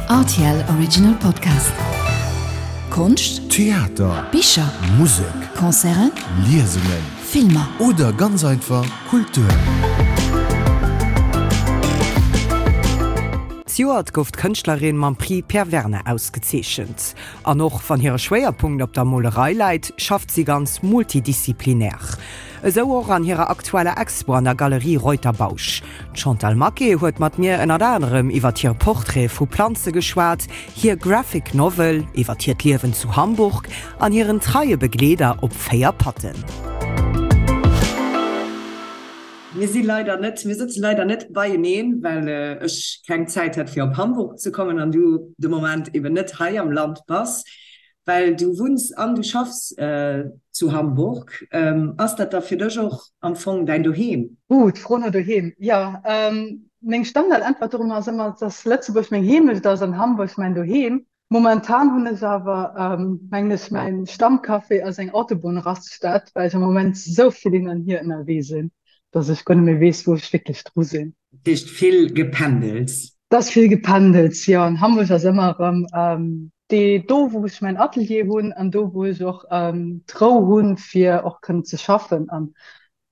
Rtl Original Podcast. Konscht, Theater, Bicher, Musek, Concerten, Liesungen, Filmer. Oder ganz einfach Kultur. Zejoert gouf d'Kënschtlerin mam Prix Pierre Werner ausgezeechent. An och wann hire Schwéierpunkt op der Molerei läit, schafft si ganz multidisziplinär. Esou och an hirer aktueller Expo an der Galerie Reuter-Bausch. D'Chantal Maquet huet mat mir ënnert anerem iwwert hir Portraite vu Planze geschwat, hir Graphic Novel, iwwert hiert Liewen zu Hamburg an hiren treie Begleeder op 4 Patten. Mir si leider net, mir sëtze leider net beieneen, well ech keng Zäit hat fir op Hamburg ze kommen an du de Moment eben net hei am Land bass. Well du wunns an du schaffs zu Hamburg. Ass dat da fir dech och am Fong däin Doheem? Ooh, d'Fro no Doheem. Jo, meng Standardäntwert dorunner ass ëmmer, dass Lëtzebuerg meng Heemecht ass an Hamburg mäin Doheem. Momentan hunn ech awer, mengen ech, mäin Stammcafé ass eng Autobunnraststätt, well ech am Moment esou vill hin an hier ënnerwee sinn, dass ech guer net méi weess, wou ech wierklech dru sinn. Dat heescht vill Gependels? Dat ass vill Gependels, jo. An Hamburg ass ëmmer erëm dee do, wou ech mäin Atelier hunn an do, wou ech och d'Rou hunn, fir och kënnen ze schaffen. An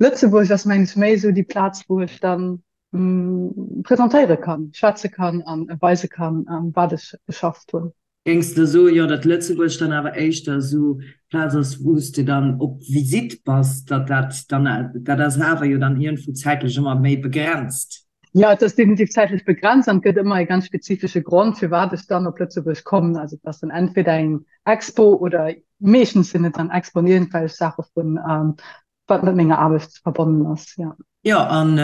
Lëtzebuerg ass, mengen ech, méi esou déi Plaz, wou ech dann presentéiere kann, schwätze kann an weise kann, wat ech geschafft hunn. Géings de soen, jo, datt Lëtzebuerg dann awer éischter esou d'Plaz ass, wou s de dann op Visitt bass, datt dat dann, dat ass awer jo dann iergendwou zäitlech ëmmer méi begrenzt? Jo, et ass definitiv zäitlech begrenzt an et gëtt ëmmer e ganz spezifesche Grond, firwat ech dann op Lëtzebuerg kommen. Also et ass dann entweder eng Expo oder meeschtens sinn et dann Expoen, iergendwelch Saache vun wat mat menger Aarbecht verbonnen ass, jo. Jo, an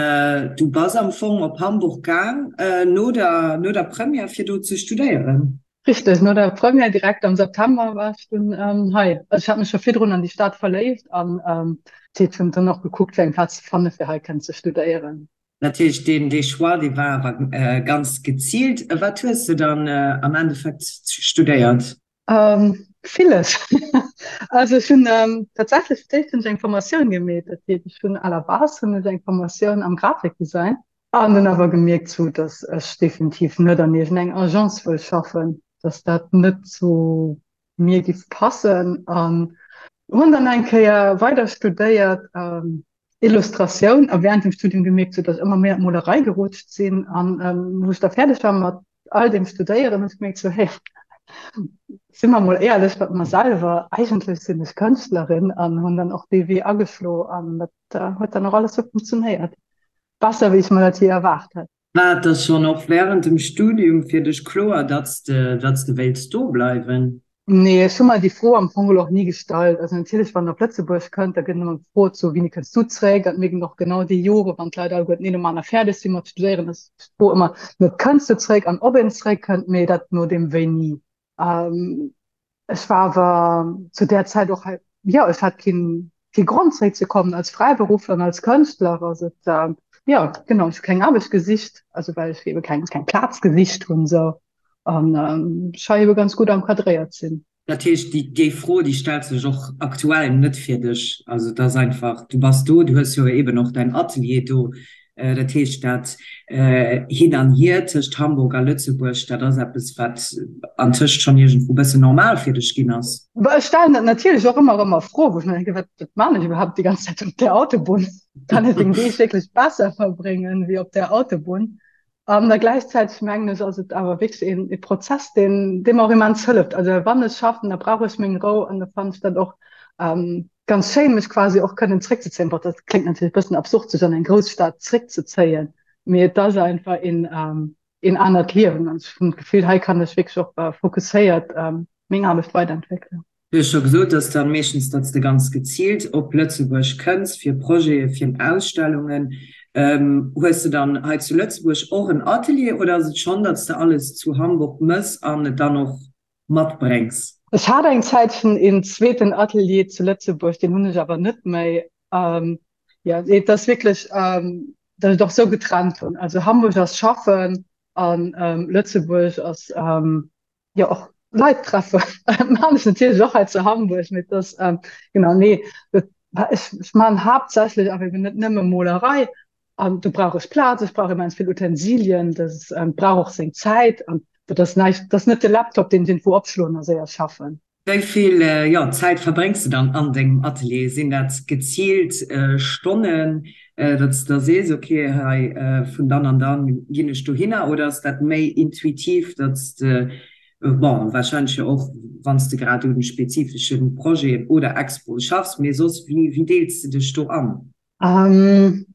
du bass am Fong op Hamburg gaang no der, no der Première fir do ze studéieren? Richteg, no der Première direkt am September war ech dunn hei. Also ech hat mech scho virdrun an déi Stad verléift an dat hunn dann och gekuckt fir eng Plaz ze fanne fir hei kënnen ze studéieren. Dat heescht deen dee Choix dee war awer ganz geziilt. Wat hues de dann am Endeffekt studéiert? Villes. Also ech hunn tatsächlech fir d'éischt hunn ech eng Formatioun gemeet. Dat heescht ech hunn à la base hunn ech eng Formatioun am Grafikdesign an hunn awer gemierkt sou, datt ech definitiv net an iergendeng Agence wëll schaffen, datt dat net zu mir giff passen an hunn dann eng Kéier weider studéiert Illustratioun a während dem Studium gemierkt, sou datt ech ëmmer méi an d'Molerei gerutscht sinn an wou ech da fäerdeg war mat all deem Studéieren, hunn ech gemierkt, sou hey, si mer mol éierlech mat mer selwer, eigentlech sinn ech Kënschtlerin an hunn dann och dee Wee ageschlo an dat huet dann och alles sou funktionéiert, besser wéi ech mer dat jee erwaart hätt. War et da schonn och wärend dem Studium fir dech kloer, datt s de, datt s de wéilts do bleiwen? Nee, ech hu mer déi Fro am Fong och ni gestallt. Also natierlech, wann een op Lëtzebuerg kënnt, da gëtt ëmmer gefrot, sou, wéini kënns du zréck? An mir ginn och genau déi Jore, wann d'Leit alleguerten een nom aner fäerdeg si mat studéieren, ass d'Fro ëmmer net, kënns de zréck an ob een zréckkënnt, mee dat no deem wéini. Ech war awer zu där Zäit och hei, jo, ech hat keen, kee Grond zréckzekommen als Fräiberuffler an als Kënschtler. Ass et, jo, genau, ech hu keng Aarbecht gesicht, also well ech ebe keng, keng Plaz gesicht hunn esou an ech hei ebe ganz gutt encadréiert sinn. Dat heescht, déi, déi Fro, déi stellt sech och aktuell net fir dech. Also et ass einfach, du bass do, du hues jo eben och däin Atelier do, Dat heescht, dat Hin an Hier tëscht Hamburg a Lëtzebuerg, dat ass eppes, wat antëscht schonn iergendwou e bëssen normal fir dech ginn ass. Ech stellen dat natierlech och ëmmer erëm a Fro, wou ech mer denken, Wat maan ech iwwerhaapt déi ganz Zäit op där Autobunn? Kann ech meng Deeg wierklech besser verbréngen wéi op där Autobunn? An da gläichzäiteg mengen ech, ass et awer wierklech een e Prozess, deen, dee mer och immens hëlleft. Also wann ech schaffen, da brauch ech meng Rou an da fannen ech dat och ganz schéin, mech quasi och kënnen zréckzezéien. Bon, dat kléngt natierlech e bëssen absurd, sech an eng Grousstad zréckzezéien, mee et ass einfach een, een anert Liewen an ech hunn d'Gefill, hei kann ech wierklech och fokusséiert meng Aarbecht weiderentwéckelen. Du hues scho gesot, dass dann meeschtens, datt s de ganz geziilt op Lëtzebuerg kënns fir Projete, fir Ausstellungen. Hues de dann hei zu Lëtzebuerg och en Atelier oder ass et schonn, datt s de alles zu Hamburg mëss an et dann och matbréngs? Ech hat eng Zäitchen een zweeten Atelier zu Lëtzebuerg, deen hunn ech awer net méi. Jo, et ass wierklech, datt ech et och esou getrennt hunn. Also Hamburg ass schaffen an Lëtzebuerg ass jo och Leit treffen. Maan ech natierlech och hei zu Hamburg, mee dass genau nee dat ech ech maan haaptsächlech awer eben net nëmme Molerei an do brauch ech Plaz, ech brauch immens vill Utensilien, dat brauch och seng Zäit an. Dat ass näischt, dat ass net de Laptop, deen ech iergendwou opschloen a séier schaffen. Wéi vill, jo, Zäit verbréngs de dann an dengem Atelier? Sinn dat geziilt Stonnen, datt s de da sees, ok, hei vun dann an dann ginn ech dohinner, oder ass dat méi intuitiv, datt s de, bon, warscheinlech jo och wann s de grad un spezifesche Projeten oder Expoe schaffs, mee soss, wéi deels de dech do an?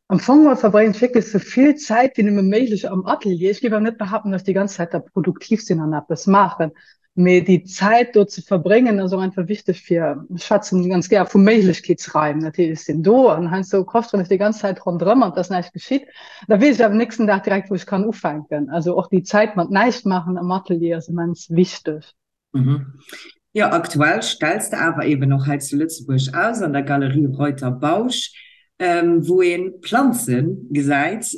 Am Fong geholl verbréngen ech wierklech sou vill Zäit wéi nëmme méiglech am Atelier. Ech géif awer net behaapten, dass ech déi ganz Zäit da produktiv sinn an eppes maachen, mee déi Zäit do ze verbréngen ass och einfach wichteg fir, ech schwätzen ganz gär vu Méiglechkeetsraim, dat heescht, ech sinn do an heiansdo koschteren ech déi ganz Zäit ronderëm an et ass näischt geschitt, da weess ech awer nächsten Dag direkt wou ech kann ufänken. Also och déi Zäit mat näischt maachen am Atelier ass immens wichteg. Jo, aktuell stells de awer eben och hei zu Lëtzebuerg aus, an der Galerie Reuter Bausch, wou ee Planze gesäit,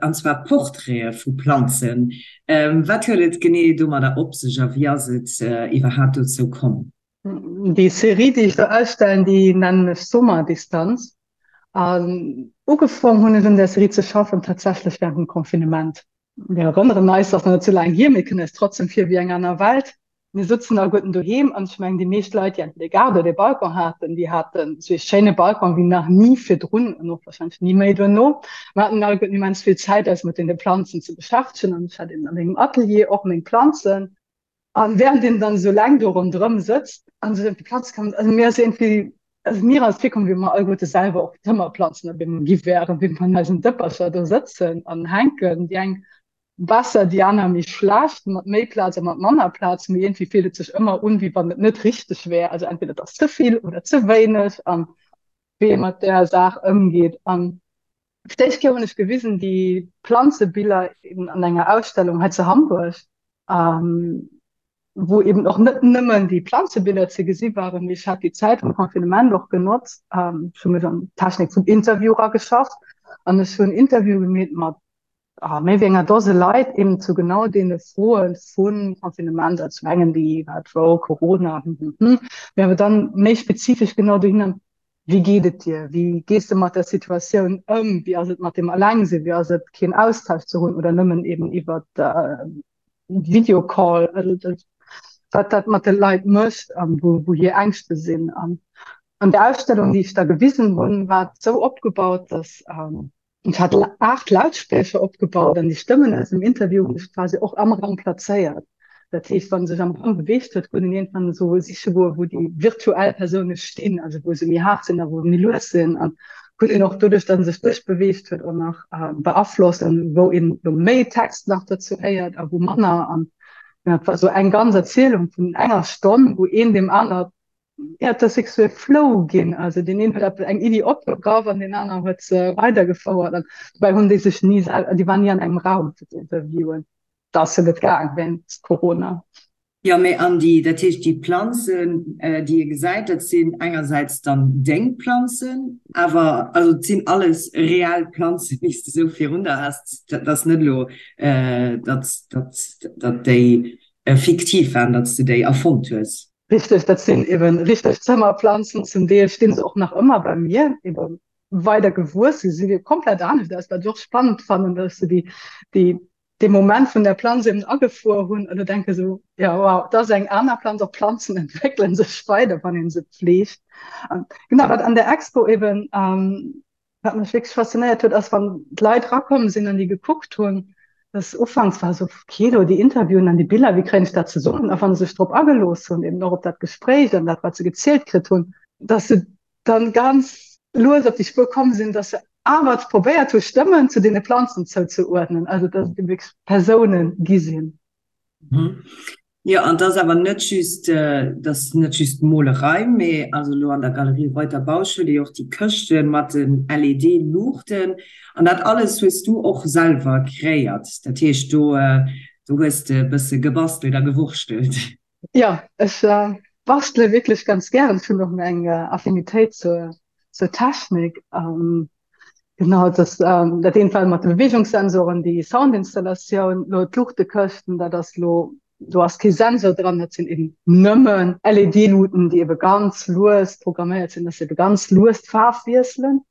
an zwar Portraite vu Planzen. Wat huet et genee domadder op sech a wéi ass et iwwerhaapt dozou komm? Déi Serie, déi ech do ausstellen, déi nennen ech Sommerdistanz. An ugefong hunn ech un där Serie ze schaffen tatsächlech wärend dem Confinement. Mir erënneren eis, ass nach net sou laang hier, mee kënnt eis trotzdem vir wéi eng aner Welt. Mir sëtzen alleguerten doheem an ech mengen, déi meescht Leit, déi entweder e Gaart oder e Balcon haten, déi haten esou ee schéine Balcon wéi nach ni virdrun an och warscheinlech ni méi duerno. Mir haten alleguerten immens vill Zäit, eis mat deene Planzen ze beschäftegen an ech hat eben a mengem Atelier och meng Planzen. An während een dann esou laang do ronderëm sëtzt an sech ëm déi Planze këmmert, also mir ass iergendwéi, also mir ass virkomm, wéi mer alleguerte selwer och Zëmmerplanzen op eemol gi wären, wéi mer an eisen Dëppercher do sëtzen an hänken, déi eng besser, déi aner méi schlecht, mat méi Plaz a mat manner Plaz, mee iergendwéi fillt et sech ëmmer un, wéi wann et net richteg wär, also entweder et ass ze vill oder ze wéineg an wéi ee mat där Saach ëmgeet. An Fir d'éischt Kéier hunn ech gewisen déi Planzebiller eben an enger Ausstellung hei zu Hamburg, wou eben och net nëmmen déi Planzebiller ze gesi waren, mee ech hat déi Zäit vum Confinement och genotzt, ech hu mech an d'Technik vum Interview erageschafft an ech hunn Interviewe gemeet mat méi wéi enger Dose Leit eben zu genau deene Froe vum Confinement, also zum engen déi wat wou Corona, hm hm hm, mee awer dann méi spezifesch genau dohinner, Wéi geet et dir? Wéi gees de mat der Situatioun ëm? Wéi ass et mat dem Allengsinn? Wéi ass et keen Austausch ze hunn oder nëmmen eben iwwer Videocall? Also wat dat mat de Leit mécht a wou hir Ängschte sinn. An an der Ausstellung, déi ech da gewisen hunn, war et esou opgebaut, datt Ech hat 8 Lautspriecher opgebaut an déi Stëmmen aus dem Interview hunn ech quasi och am Raum plazéiert. Dat heescht, wa sech am Raum beweegt huet, konnt een iergendwann esou siche goen, wou déi virtuell Persoune stinn, also wou se méi haart sinn a wou se méi lues sinn. An konnt een och doduerch, datt en sech duerchbeweegt huet, och nach beaflossen, wou een elo méi Text nach dozou héiert a wou manner. An dat war esou eng ganz Erzielung vun enger Stonn, wou een deem aner Ja, et ass wierklech esou e Flow ginn. Also deen een huet eppes, eng Iddi opgegraff an deen aneren huet se weidergefouert. An dobäi hunn déi sech ni sel, déi waren ni an engem Raum fir ze interviewen. Dat ass jo net gaang wéinst Corona. Jo, mee an déi, dat heescht déi Planzen, déi ee gesäit, dat sinn engersäits dann deng Planzen, awer also et sinn alles reell Planzen, déi s de esou virun der has. Dat ass net elo, datt, datt, datt déi fiktiv waren, datt s de déi erfonnt hues. Richteg, dat sinn eben richteg Zëmmerplanzen. Zum Deel stinn se och nach ëmmer bei mir, eben weider gewuess. Se si komplett anescht aus, wat ech och spannend fannen, dass se déi, déi, dee Moment vun der Planz eben agefuer hunn an da denke sou, ja wow, dat ass eng aner Planz. Och Planzen entwéckele sech weider, wann ee se pfleegt. An genau, wat an der Expo eben Wat mech wierklech faszinéiert huet, ass wann d'Leit rakomm sinn an déi gekuckt hunn, dass ufanks war esou, okay, do déi Interviewen an déi Biller, wéi kréien ech dat zesummen? A wa se sech drop agelooss hunn, eben och op dat Gespréich an dat, wat se gezielt kritt hunn, dass se dann ganz lues op déi Spuer komm sinn, dass se awer probéiert hu Stëmmen zu deene Planzen zouzeuerdnen, also dass et eben wierklech Persounen gi sinn. Jo, an 't ass awer net just, 't ass net just d'Molerei, mee also elo an der Galerie Reuter Bausch huet ee jo och déi Këschte mat den LED-Luuchten an dat alles hues du och selwer kreéiert. Dat heescht, do, do hues de e bësse gebastelt a gewurschtelt. Jo, ech bastele wierklech ganz gären. Ech hunn och eng Affinitéit zur, zur Technik. Genau, dat dat eent war mat de Beweegungssensoren, déi Soundinstallatioun, lo d'Luuchtekëschten, dat ass lo, do ass kee Sensor dran, dat sinn eben nëmmen LED-Luuten, déi ebe ganz lues programméiert sinn, dass se ebe ganz lues d'Faarf wiesselen.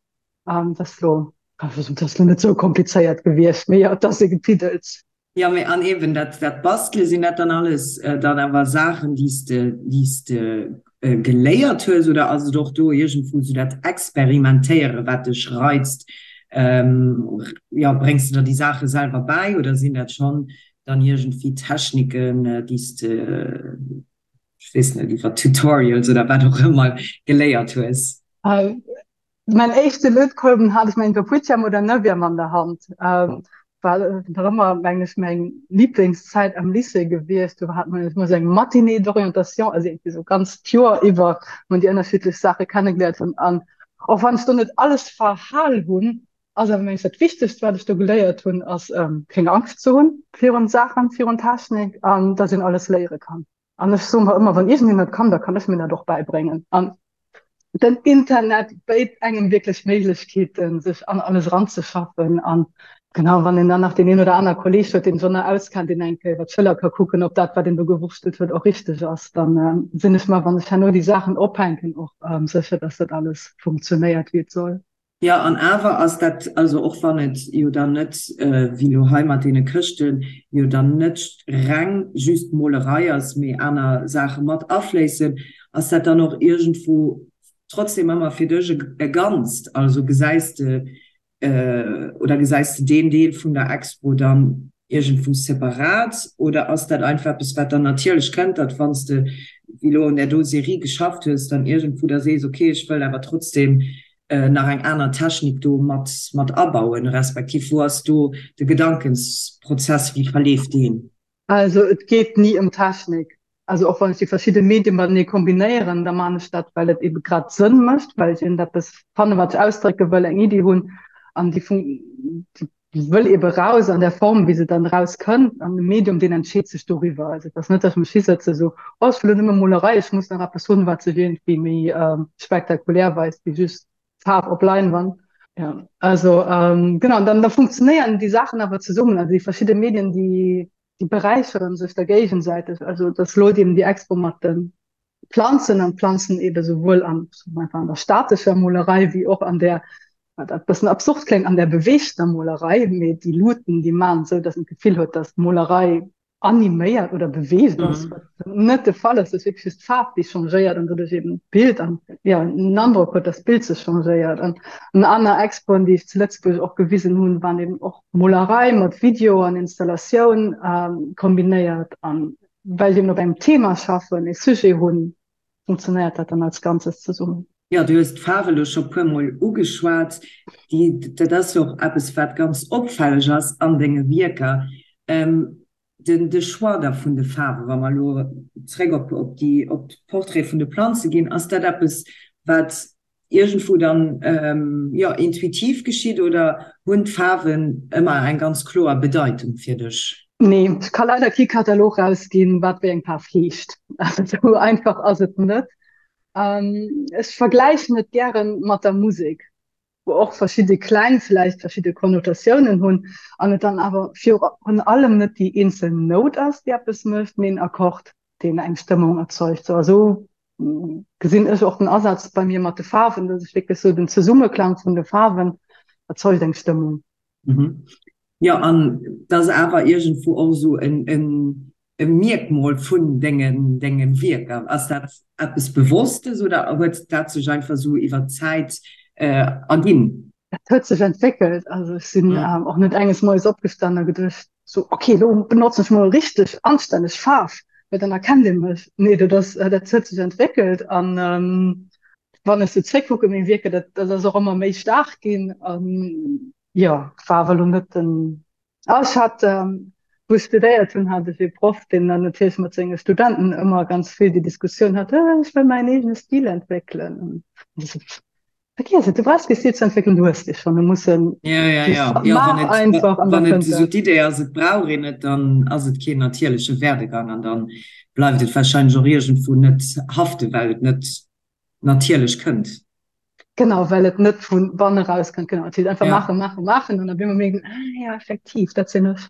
Dat ass lo, dat ass lo net sou komplizéiert gewiescht, mee jo, et ass e Gepiddels. Jo, mee an eben dat, dat Bastele, sinn dat dann alles dann awer Saachen, déi s de, déi s de geléiert hues oder ass et och do iergendwou esou dat Experimentéiere wat dech reizt? Jo, bréngs de der déi Saache selwer bäi oder sinn dat schonn dann iergendwéi Techniken, déi s de, ech weess net, iwwer Tutorials oder wat och ëmmer geléiert hues? Mäin éischte Lötkolben hat ech mengen Kaputtjam oder Neuvième an der Hand. War nach ëmmer mengen ech meng Lieblingszäit am Lycée gewiescht. Do hat man ëmmer sou eng Matinée d'orientation, also irgendwie sou ganz d'Joer iwwer, wou man déi ënnerschiddlech Saache kennegeléiert hunn. An och wann ech do net alles verhal hunn, ass awer mengen ech dat Wichtegst wat ech do geléiert hunn, ass keng Angscht ze hunn virun Saachen, virun Technik an dass een alles léiere kann. An ech soe mer ëmmer, wann iergendeen dat kann, da kann ech mir dat och bäibréngen. An den Internet béit engem wierklech Méiglechkeeten, sech an alles eranzeschaffen. An genau, wann een dann nach deen een oder aner Kolleeg huet, deen sech och nach auskennt, deen eng Kéier iwwer d'Schëller ka kucken, ob dat, wat een do gewurschtelt huet, och richteg ass, dann sinn ech mer, wann ech herno déi Saachen ophänken, och sécher, dass dat alles funktionéiert, wéi et soll. Jo, an awer ass dat, also och wann et jo dann net, wéi elo hei mat deene Këschten, jo dann net reng just Molerei ass, mee aner Saache mat afléissen, ass dat dann och iergendwou trotzdem ëmmer fir dech e Ganzt? Also gesäis de, oder gesäis de deen Deel vun der Expo dann iergendwou separat oder ass dat einfach eppes, wat dann natierlech kënnt, datt wann s de wéi elo un där do Serie geschafft hues, dann iergendwou da sees, okay, ech wëll awer trotzdem nach eng aner Technik do mat mat abauen, respektiv wou ass do de Gedankensprozess, wéi verleeft deen? Also et geet ni ëm Technik. Also och wann ech déi verschidde Medie matenee kombinéieren, da man ech dat, well et ebe grad Sënn mécht, well ech iergendeppes fannen, wat ech ausdrécke wëll, eng Iddi hunn an déi déi wëll ebe raus an der Form, wéi se dann raus kënnt. An de Medium, deen entscheet sech doriwwer. Also et ass net, datt ech mech hisëtze sou, oh ech wëll elo nëmme Molerei, ech muss nach eppes hunn, wat sech iergendwéi méi spektakulär weist wéi just Faarf op Leinwand. Ja, also genau, an dann da funktionéieren déi Saachen awer zesummen, also déi verschidde Medien, déi déi beräicheren sech da géigesäiteg. Also dass elo eben déi Expo mat de Planzen an d'Planzen eben souwuel an, einfach an der statescher Molerei wéi och an där, wat e bëssen absurd kléngt, an där beweegter Molerei, mee déi Luuten, déi maachen esou, dass een d'Gefill huet, dass d'Molerei animéiert oder beweegt ass, wat net de Fall ass, ass wierklech just d'Faarf, déi changéiert an doduerch eben d'Bild an jo en Androck huet, dass d'Bild sech changéiert. An an aner Expoen, déi ech zu Lëtzebuerg och gewisen hunn, waren eben och Molerei mat Video an Installatioun kombinéiert. An well ech eben op engem Thema schaffen, e Sujet hunn, funktionéiert dat dann als Ganzes zesummen. Jo, du hues d'Faarf elo scho puermol ugeschwat. Déi, dat ass jo och eppes, wat ganz opfälleg ass an denge Wierker. Den, de Choix da vun de Faarwen, wa mer elo zréck op, op déi, op d'Portraite vun de Planze ginn, ass dat eppes, wat iergendwou dann, jo, intuitiv geschitt oder hunn d'Faarwen ëmmer eng ganz kloer Bedeitung fir dech? Nee, ech ka leider kee Katalog rausginn, wat wéi eng Faarf heescht. Also esou einfach ass et net. Ech vergläichen et gären mat der Musek, wou och verschidde Kläng vläicht verschidde Konnotatiounen hunn an et dann awer virun allem net déi eenzel Nout ass, déi eppes mécht, mee en Akkord, deen eng Stëmmung erzeugt. Sou a sou gesinn ech och den Asaz bei mir mat de Faarwen, dass ech wierklech sou den Zesummeklang vun de Faarwen erzeugt eng Stëmmung. Jo, an et ass awer iergendwou och esou en e Mierkmol vun dengen denge Wierker? Ass dat eppes Bewosstes oder huet dat sech einfach esou iwwer d'Zäit erginn? Dat huet sech entwéckelt. Also ech sinn och net enges Moies opgestanen a geduecht, sou ok, elo benotzen ech mol richteg anstänneg Faarf, well dann erkennt ee mech. Nee, dat ass, dat huet sech entwéckelt an wann ech sou zréckkucken, meng Wierker, dat dat ass och ëmmer méi staark ginn an jo, war awer elo net den Ah, ech hat, wou ech studéiert hunn, hat ech ee Proff, deen dann natierlech mat senge Studenten ëmmer ganz vill déi Diskussioun hat, Ech wëll mäin eegene Stil entwéckelen. An ech sou, Vergiess et, du brauchs kee Stil ze entwéckelen, du hues dee schonn. Du muss en Ja, ja, just ja. Ja, wann maach et, einfach an da wann et kënnt esou dat. d'Idee ass, et brauch een et, dann ass et keen natierleche Werdegang an dann bleift et warscheinlech och iergendwou net haften, well et net natierlech kënnt. Genau, well et net vu banne raus kënnt. Genau, et heescht einfach Ja. maachen, maachen, maachen an op eemol mierkt een, ah ja, effektiv, dat sinn ech.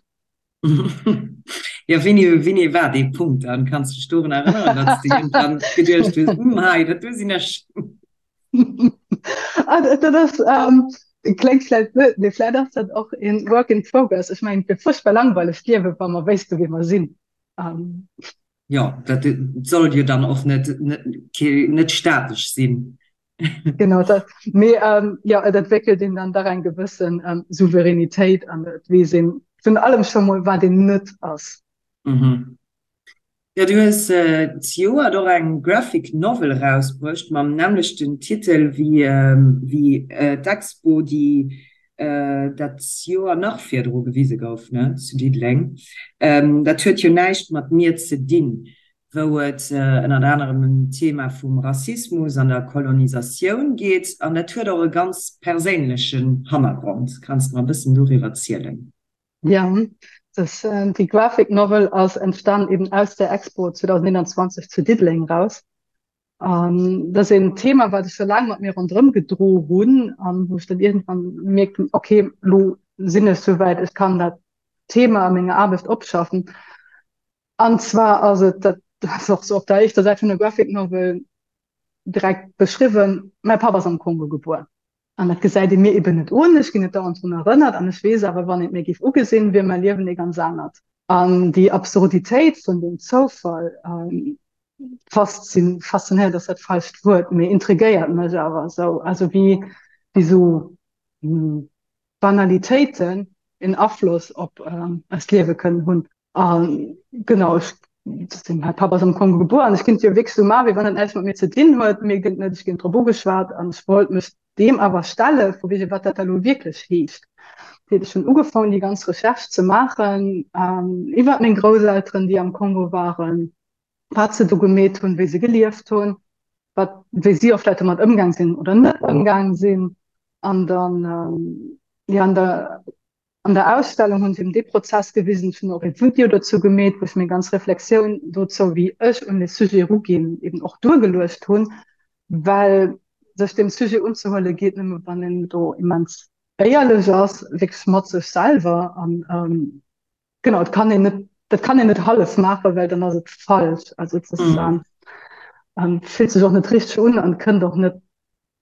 Ja, wéini, wéini war dee Punkt dann? Kanns du dech dorun erënneren, datt s de iergendwann geduecht hues, Hm, hei, dat do sinn ech? Ah, dat ass, ähm, Kléngt vläit blöd, mee vläit ass dat och een Work in progress. Ech mengen, et wier fuerchtbar langweileg d'Liewen, wa mer wéisste wie mer sinn. Jo, dat soll jo dann och net, net statesch sinn. Genau dat. Mee jo, et entwéckelt een dann dach eng gewëssen Souveränitéit an et weess een virun allem scho mol, wat een net ass. Jo, du hues zejoert och eng Graphic Novel erausbruecht mam nämmlechten Titel wéi d'Expo, déi dat Joer nach virdru gewise gouf, ne, zu Diddeleng. Dat huet jo näischt mat mir ze dinn, wou et ënnert anerem ëm d'Thema vum Rassismus an der Kolonisatioun geet. An dat huet och e ganz perséinlechen Hannergrond. Kanns de mer e bëssen doriwwer zielen? Ja, das, äh, die Graphic Novel ass entstan eben aus der Expo 2021 zu Diddeleng raus. An dat ass een Thema, wat ech scho laang mat mir ronderëm gedro hunn an wou ech dann iergendwann gemierkt hunn, okay, lo sinn ech souwäit, ech kann dat Thema a menger Aarbecht opschaffen. An zwar ass et, dat ass och sou op der éischter Säit vun der Graphic Novel direkt beschriwwen, mäi Papp ass am Kongo gebuer. An dat gesäit ee mir eben net un, ech ginn net dauernd drun erënnert an ech weess awer, wann een et mir géif ugesinn, wier mäi Liewen ee ganz anert. An déi Absurditéit vun deem Zoufall faszinéiert ass dat falscht Wuert, mee intrigéiert mech awer esou, also wéi esou Banalitéiten en Afloss op eist Liewe kënnen hunn. A genau, ech sinn, mäi Papp ass am Kongo gebuer an ech kinnt jo wierklech esou maachen, wéi wann dat näischt mat mir ze dinn huet, mee gëtt net, ech ginn drop ugeschwat an ech wollt mech deem awer stelle vu wege wat dat da lo wierklech heescht. Dat heescht, ech hunn ugefaangen déi ganz Recherche ze maachen iwwert meng Grousselteren, déi am Kongo waren, wat se do gemeet hunn, wéi se gelieft hunn, wat, wéi si och vläicht domat ëmgaang sinn oder net ëmgaang sinn an dann, jo, an der An der Ausstellung hunn se eben dee Prozess gewisen. Ech hunn och ee Video dozou gemeet, wou ech meng ganz Reflexioun dozou, wéi ech un dee Sujet eruginn, eben och duergeluecht hunn, well sech deem Sujet unzehuele geet nëmme wann een do immens éierlech ass, wierklech mat sech selwer. An genau, et kann een net, dat kann een net hallef maachen, well dann ass et falsch. Also et ass, fillt sech och net richteg un an kënnt och net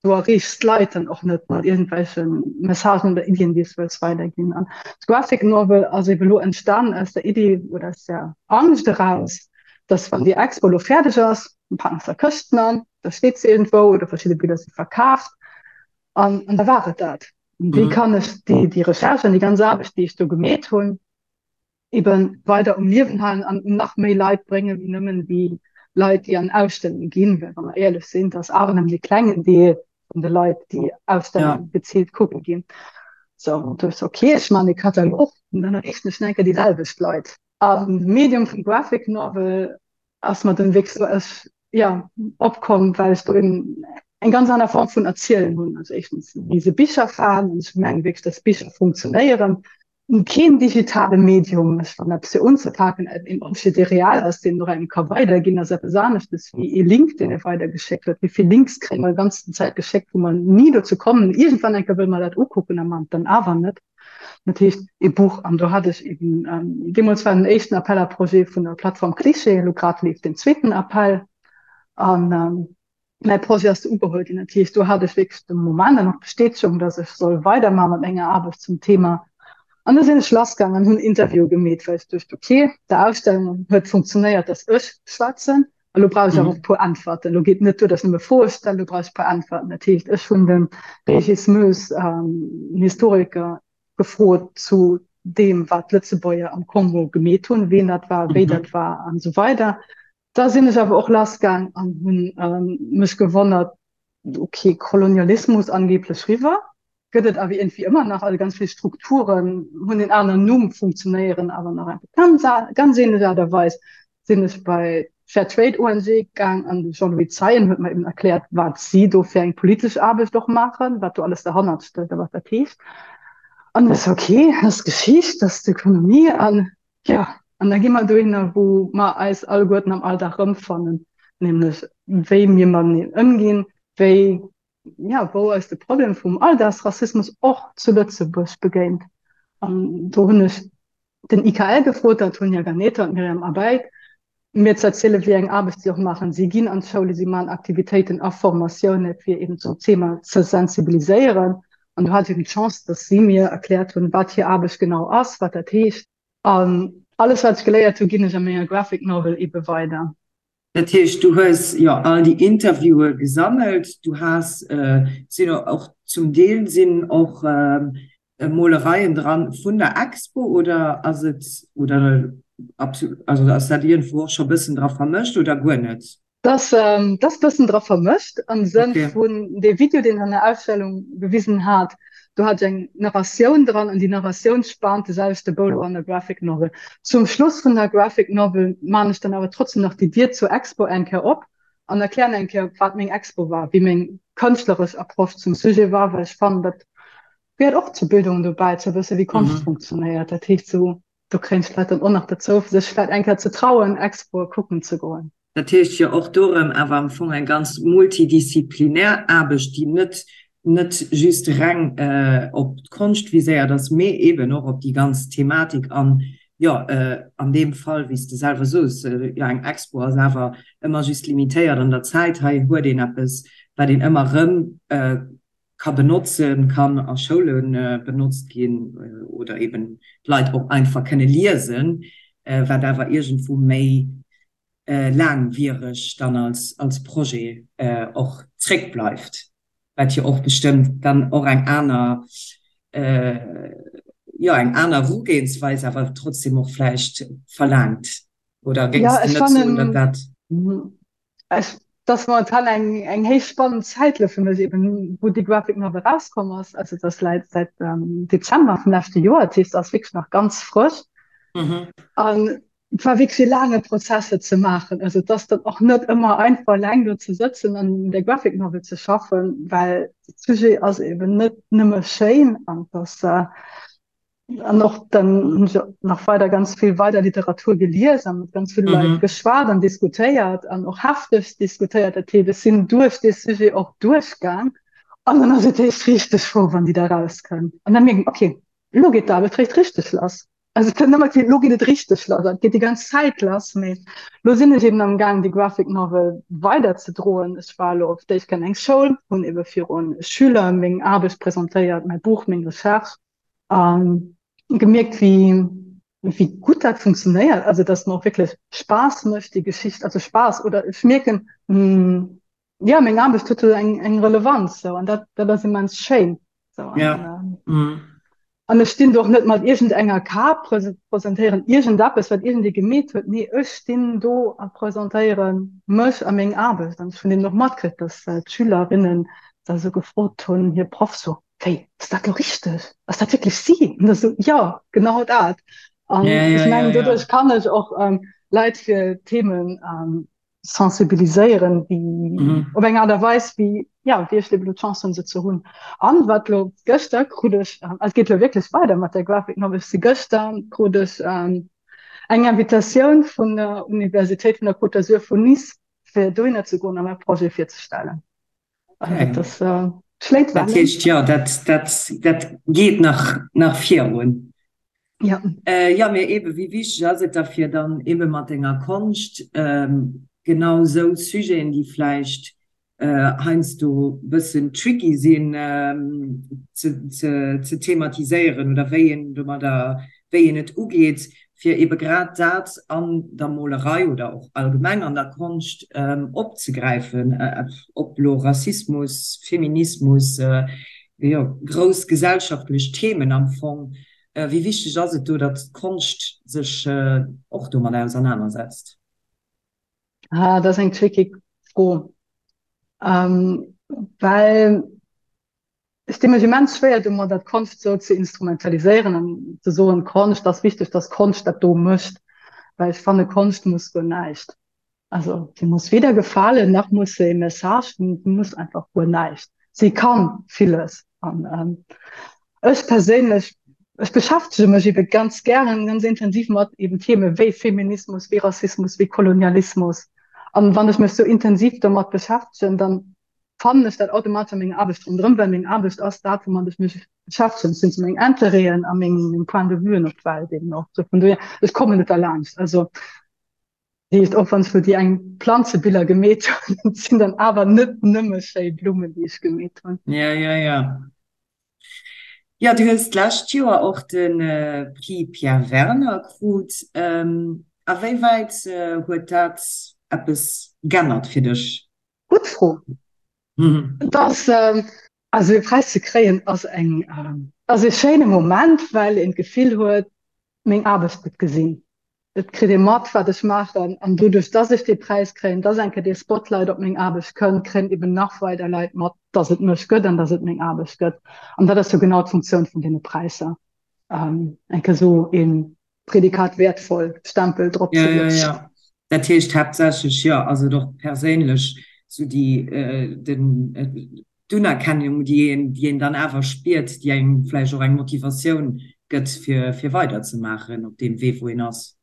Du erreechs d'Leit dann och net mat iergendwelche Messagen oder Iddien, déi s du wëlls weiderginn. An d'Graphic Novel ass ebe lo entstan aus der Iddi oder aus der Angscht eraus, dass wann déi Expo lo fäerdeg ass, dann packen se Këschten an, da steet se iergendwou oder verschidde Biller si verkaaft an an da war et dat. An wéi kann ech déi déi Recherche an déi ganz Aarbecht, déi ech do gemeet hunn, eben weider um Liewen halen an un nach méi Leit bréngen, wéi nëmmen déi Leit, déi an Ausstellunge ginn. Well wa mer éierlech sinn, dat ass awer nëmmen e klengen Deel vun de Leit, déi Ausstellunge geziilt kucke ginn. Sou, an du hues, okay, ech maachen e Katalog an dann erreechen ech nach eng Kéier déi selwecht Leit. An de Medium vum Graphic Novel ass mer dann wierklech sou, ech, jo, opkomm, well ech do eben eng ganz aner Form vun Erzielen hunn. Also éischtens si se Bicherfan an ech mengen wierklech, dass Bicher funktionéieren. Keen digitale Medium, ech fannen eppes fir unzepaken, een Objet dee real ass, deen och engem ka weiderginn, ass eppes aneschtes wéi ee Link deen ee weidergeschéckt huet. Wéi vill Links kréie mer déi ganzen Zäit geschéckt, wou mer ni dozou kommen, iergendwann eng Kéier wëlle mer dat ukucken a man et dann awer net. Dat heescht ee Buch an do hat ech eben, deemools war den éischten Appel à projets vun der Plattform Cliché, elo grad leeft den zweeten Appel an Mäi Projet ass du ugeholl ginn. Dat heescht, do hat ech wierklech de Moment an och d'Bestätegung, dass ech soll weidermaache mat menger Aarbecht zum Thema. An da sinn ech lassgaangen an hunn Interviewe gemeet, well ech duecht, okay, der Ausstellung huet funktionéiert, dass ech schwätzen, a lo brauch ech awer och e puer Äntwerten. Lo geet net duer, dass ech nëmme Froe stellen, lo brauch ech e puer Äntwerten. Dat heescht, ech hunn de Régis Moes, en Historiker, gefrot zu deem, wat d'Lëtzebuerger am Kongo gemeet hunn, wien dat war, wéi dat war an esou weider. Da sinn ech awer och lassgaang an hunn mech gewonnert, ok, Kolonialismus angeblech riwwer, gëtt et awer iergendwéi ëmmer nach, also ganz vill Strukturen hunn en aneren Numm, funktionéieren awer nach einfach ganz, ganz ähnlech Aart a Weis. Sinn ech bei d'Fair Trade ONG gaang an de Jean-Louis Zeien huet mer eben erkläert, wat si do fir eng politesch Aarbecht och maachen, wat do alles derhannert stécht a wat dat heescht. An ech sou, ok, dat ass d'Geschicht, dat ass d'Ökonomie an Jo, an da gi mer dohinner, wou mer eis alleguerten am Alldag erëmfannen, nämlech wéi mir mateneen ëmginn, wéi, jo, wou eis de Problem vum Alldagsrassismus och zu Lëtzebuerg begéint. An do hunn ech den IKL gefrot, d'Antonia Ganeta an d'Myriam Abeid, mir ze erzielen, wéi eng Aarbecht si och maachen. Si ginn an d'Schoule, si maachen Aktivitéiten a Formatioune fir eben zum Thema ze sensibiliséieren. An do hat ech eben d'Chance, dass si mir erkläert hunn, wat hir Aarbecht genau ass, wat dat heescht. An alles, wat ech geléiert hu, ginn ech a menger Graphic Novel ebe weider. Dat heescht, du hues jo all déi Interviewe gesammelt, du has, sinn och zum Deel sinn och Molereien dran vun der Expo oder ass et, oder also ass dat iergendwou och scho bëssen dra vermëscht oder guer net? Dat ass bëssen dra vermëscht am Sënn vun dee Video, deen ech an der Ausstellung gewisen hat, do hat ech eng Narratioun dran an déi Narratioun spaant de selwechte Bou an der Graphic Novel. Zum Schluss vun der Graphic Novel maan ech dann awer trotzdem nach déi Dier zur Expo eng Kéier op an erklären eng Kéier, wat meng Expo war, wéi meng kënschtleresch Approche zum Sujet war, well ech fannen, dat gehéiert och zur Bildung dobäi, ze wësse wéi Konscht funktionéiert. Dat heescht, sou do kréien ech d'Leit dann och nach dozou, fir sech vläicht eng Kéier ze trauen, Expoe kucken ze goen. Dat heescht jo och do erëm awer am Fong eng ganz multidisziplinär Aarbecht, déi net net just reng op d'Konscht viséiert ass, mee eeben och op déi ganz Thematik an, jo, an deem Fall, wéi s de selwer soos, jo, eng Expo ass awer ëmmer just limitéiert an der Zäit. Hei huet een eppes, wat een ëmmer erëm ka benotzen, kann a Schoule benotzt ginn oder eeben d'Leit och einfach kënne liesen, wat awer iergendwou méi laangwiereg dann als, als Projet och zréckbleift, wat jo och bestëmmt dann och eng aner, jo eng aner Erugehensweis awer trotzdem och vläicht verlaangt. Oder géings de net soen, datt dat. Ech, dat ass momentan eng, eng héich spannend Zäit elo fir mech eben, wou déi Graphic Novel erauskomm ass. Also dat ass läit säit Dezember vum leschte Joer, dat heescht, ass wierklech nach ganz frësch. An Et war wierklech e laange Prozess et ze maachen. Also et ass dann och net ëmmer einfach eleng do ze sëtzen an un der Graphic Novel ze schaffen, well de Sujet ass eben net nëmme schéin an et ass an och dann hunn ech nach weider ganz vill weider Literatur gelies a mat ganz ville Leit geschwat an diskutéiert an och hefteg diskutéiert. Dat heescht, ech sinn duerch dee Sujet och duerchgaang an dann ass et eréischt richteg frou, wann déi da rauskënnt an da mierkt een, okay, elo geet d'Aarbecht réischt richteg lass. Also et kënnt ëmmer keen, lo geet et richteg lass, et geet déi ganz Zäit lass, mee lo sinn ech eben am gaang déi Graphic Novel weider ze droen. Ech war elo op d'éischt an eng Schoul, hunn ebe virun Schüler meng Aarbecht presentéiert, mäi Buch, meng Recherche a gemierkt wéi wéi gutt dat funktionéiert, also datt mer och wierklech Spaass mécht déi Geschicht, also Spaass oder ech mierken, jo meng Aarbecht huet do eng eng Relevanz sou an dat dat ass immens schéin sou an Ja. ähm, an ech stinn do och net mat iergend enger Kap presentéieren iergend eppes wat iergendee gemeet huet nee ech stinn do a presentéiere mech a meng Aarbecht an ech hunn eben och matkritt dass äh, d'Schülerinnen da sou gefrot hunn hir Proff sou wéi ass dat lo richteg ass dat wierklech si an da sou jo genau dat an Ja, ja, ech ja, mengen ja. doduerch kann ech och ähm, Leit fir Themen ähm, sensibiliséieren wéi Mhm. op eng Aart a Weis wéi ja wéi ech elo d'Chance hunn se ze hunn. An wat lo gëschter krut ech ähm, et geet lo wierklech weider mat der Graphic Novel, ech si gëschter krut ech ähm, eng Invitatioun vun der Universitéit vun der Côte d'Azur vun Nice fir dohinner ze goen a mäi Projet virzestellen. Also Okay. dat ass äh, schléit Dat Wellen. heescht, jo, dat, dat, dat geet nach, nach virun. Ja. Äh, ja, mee ebe wéi wichteg ass et da fir dann ebe mat denger Konscht ähm, genau sou Sujeten, déi vläicht äh, heiansdo bëssen tricky sinn ähm, ze, ze, ze thematiséieren oder wéi een domadder, wéi een et ugeet, fir ebe grad dat an der Molerei oder och allgemeng an der Konscht ähm, opzegräifen, äh, ob lo Rassismus, Feminismus, äh, jo, grouss gesellschaftlech Themen am Fong. Wéi wichteg ass et do, datt d'Konscht sech och domat ausernanersetzt? Ah, dat ass eng tricky Fro, well ech di mech immens schwéier domadder, d'Konscht esou ze instrumentaliséieren an ze soen, Konscht ass wichteg, datt Konscht dat do mécht, well ech fanne Konscht muss guer näischt. Also sie muss weder gefalen, nach muss se e Message hunn, sie muss einfach guer näischt. Sie kann villes. An ähm, ech perséinlech, ech beschäftege mech ebe ganz gären, ganz intensiv mat eben Themen wéi Feminismus, wéi Rassismus, wéi Kolonialismus. An wann ech mech sou intensiv domat beschäftegen, dann fannen ech dat automatesch a menger Aarbecht ronderëm, well meng Aarbecht ass dat, woumat ech mech beschäftegen. Dat sinn sou meng Interêten a meng, meng Point de vuen op d'Welt eben och. Sou vun dohier, ech kommen net derlaanscht. Also Heescht, och wann ech lo déi eng Planzebiller gemeet hunn, et sinn dann awer net nëmme schéi Blummen, déi ech gemeet hunn. Ja, ja, ja. Jo, du hues d'lescht Joer och de Prix Pierre Werner krut. A wéi wäit huet dat eppes g'ännert fir dech? Gutt Fro. Et ass, also e Präis ze kréien ass eng, ass e schéine Moment, well een d'Gefill huet, meng Aarbecht gëtt gesinn. Et kritt ee mat, wat ech maachen. An doduerch, dass ech dee Präis kréien, dass eng Kéier dee Spotlight op meng Aarbecht kënnt, kréien eben nach weider Leit mat, dass et mech gëtt an dass et meng Aarbecht gëtt. An dat ass jo genau d'Funktioun vun deene Präisser, eng Kéier esou ee Prädikat wertvoll Stempel drop ze Ja, ja, lutzen. ja. Dat heescht haaptsächlech, jo, ass et och perséinlech esou déi, den, d'Unerkennung, déi een, déi een dann awer spiert, déi engem vläicht och eng Motivatioun gëtt, fir, fir weiderzemaachen op deem Wee, wou een ass.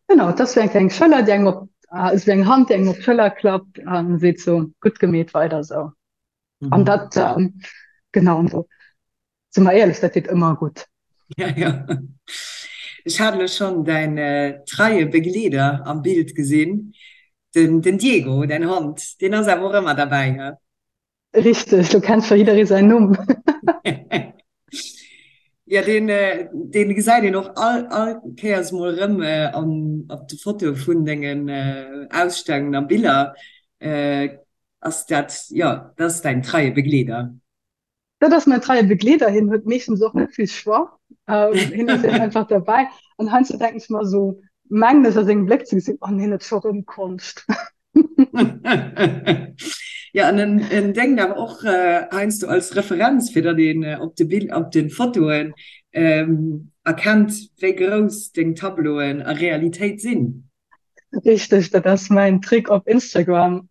Genau, et ass wéi eng kleng Schëller, déi engem op, esou wéi eng Hand, déi engem op d'Schëller klappt a seet sou, gutt gemeet, weider esou. An dat, genau, an do Si mer éierlech, dat deet ëmmer gutt. Ja, ja. Ech hat elo schonn däin treie Begleeder am Bild gesinn, den, den Diego, däin Hond, deen ass awer och ëmmer derbäi, he? Richteg, do kennt scho jidderee säin Numm. Ja, deen, deen gesäit een och all, all Kéiers mol erëm an, op de Fotoe vun dengen Ausstellungen a Biller. Ass dat, jo, dat ass däin treie Begleeder. Dat ass mäin treie Begleeder, hien huet meeschtens och net vill Choix, hien ass eben einfach derbäi. An heiansdo denken ech mer esou, mengen ech a sengem Bléck ze gesinn, oh hien huet scho rëm Konscht. Jo, an en, en déngt awer och heiansdo als Referenz, fir datt een op de Bill, op de Fotoen erkennt, wéi grouss deng Tableauen a Realitéit sinn. Richteg, dat ass mäin Trick op Instagram,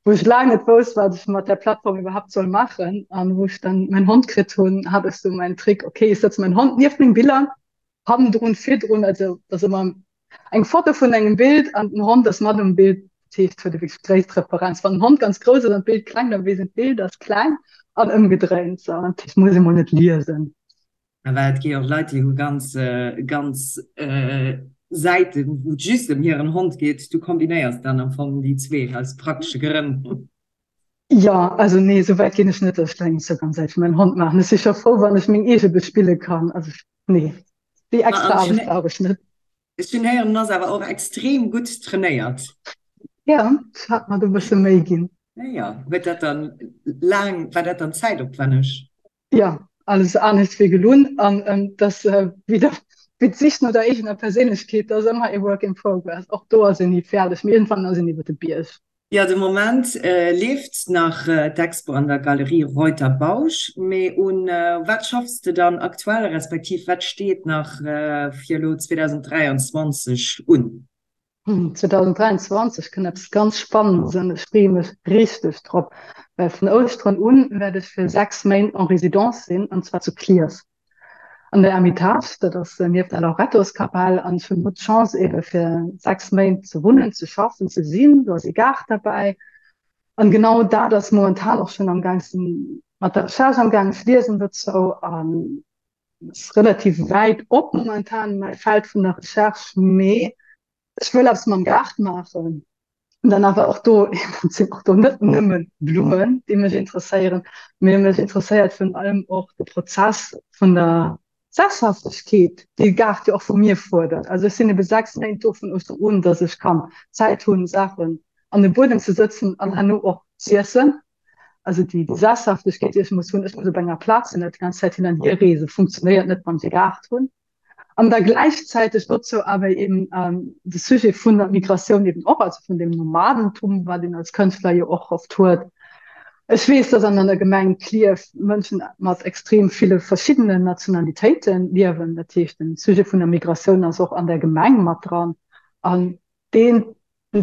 wou ech laang net wousst, wat ech mat där Plattform iwwerhaapt soll maachen. An wou ech dann mäin Hond kritt hunn, hat ech sou mäin Trick, okay, ech sëtze mäin Hond nieft meng Biller, hannendrun, virdrun, also et ass ëmmer eng Foto vun engem Bild an den Hond ass mat um Bild, dat heescht, huet e wierklech d'gréisst Referenz. Wann den Hond ganz grouss ass an d'Bild kleng, da weess een, d'Bild ass kleng an ëmgedréint. Sou, dat heescht, muss ee mol net liesen. Well et gi jo och Leit, déi hu ganz, ganz Säiten, wou et just ëm hiren Hond geet. Du kombinéiers dann am Fong déi zwee aus praktesche Grënn. Jo, also nee, esou wäit ginn ech net, datt ech eng Instagram-Säit fir mäin Hond maachen. Ech si scho frou, wann ech meng eege bespille kann. Also nee, déi extra Aarbecht brauch ech net. Ech hunn héieren, en ass awer och extrem gutt trainéiert. Jo, ech hat mer do e bësse Méi ginn. Jo, huet dat dann laang, war dat dann zäitopwänneg? Jo, alles anescht wéi gelunn. An et ass wéi der, wéi d'Sich no der eegener Perséinlechkeet, dat ass ëmmer ee Work in progress. Och do ass een ni fäerdeg, mee iergendwann ass een iwwer de Bierg. Jo, de Moment leeft nach d'Expo an der Galerie Reuter Bausch. Mee un wat schaffs de dann aktuell, respektiv wat steet nach fir elo 2023 un? 2023 kënnt eppes ganz Spannendes an ech freeë mech richteg drop, well vun Ouschteren un wäert ech fir 6 Méint en Résidence sinn an zwar zu Clierf an der Ermitage, dat ass nieft der Lorettoskapell an ech hunn do d'Chance ebe fir 6 Méint ze wunnen, ze schaffen, ze sinn. Do ass ee Gaart derbäi an genau dat ass momentan och schonn am Gaang, ech sinn mat der Recherche am Gaang, ech liesen dozou an ass relativ wäit op momentan mäi Feld vun der Recherche, mee ech wëll eppes mam Gaart maachen. An dann awer och do, et sinn och do net nëmme Blummen, déi mech interesséieren, mee mech interesséiert virun allem och de Prozess vun der Sesshaftegkeet, déi de Gaart jo och vu mir fuerdert. Also ech sinn ebe 6 Méint do vun Ouschteren un, datt ech kann Zäit hunn, Saachen an de Buedem ze sëtzen an herno och z'iessen. Also déi Sesshaftegkeet, déi ech muss hunn, ech muss op enger Plaz sinn, net déi ganz Zäit hin an hier reesen, funktionéiert net, wann ech e Gaart hunn. An da gläichzäiteg dozou awer eben de Sujet vun der Migratioun eben och, also vun dem Nomadentum, wat een als Kënschtler jo och oft huet. Ech weess, dass an der Gemeng Klierf Mënschen mat extrem ville verschiddenen Nationalitéite liewen. Dat heescht, den Sujet vun der Migratioun ass och an der Gemeng mat dran. An deen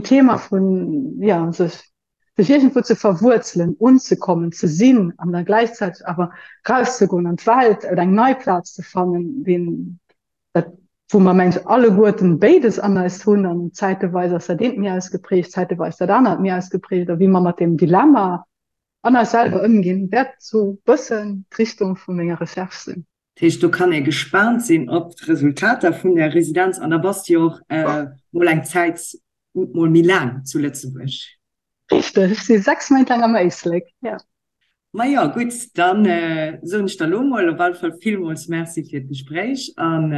Thema vun, jo, sech sech iergendwou ze verwuerzelen, unzekommen, ze sinn an da gläichzäiteg awer rauszegoen an d'Welt oder eng nei Plaz ze fannen, deen, dat, wou mer mengen ech alleguerten béides an eis hunn an zäiteweis ass dat eent méi ausgeprägt, zäiteweis dat anert méi ausgeprägt a wéi mer mat deem Dilemma an eis selwer ëmginn, wäert sou bëssen d'Richtung vu menger Recherche sinn. Dat heescht, do kann ee gespaant sinn op d'Resultater vun där Residenz. An da bass de jo och mol eng Zäit mol méi laang zu Lëtzebuerg. Richteg, ech si 6 Méint laang am Éislek, jo. Majo, gutt, dann soen ech der elo mol op alle Fall villmools Merci fir d'Gespréich an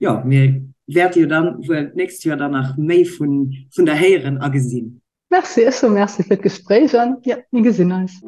jo, mir wäerte jo dann wuel d'nächst Joer dann nach méi vun vun der héieren a gesinn. Merci, ech soe Merci fir d'Gespréich an jo, mir gesinn eis.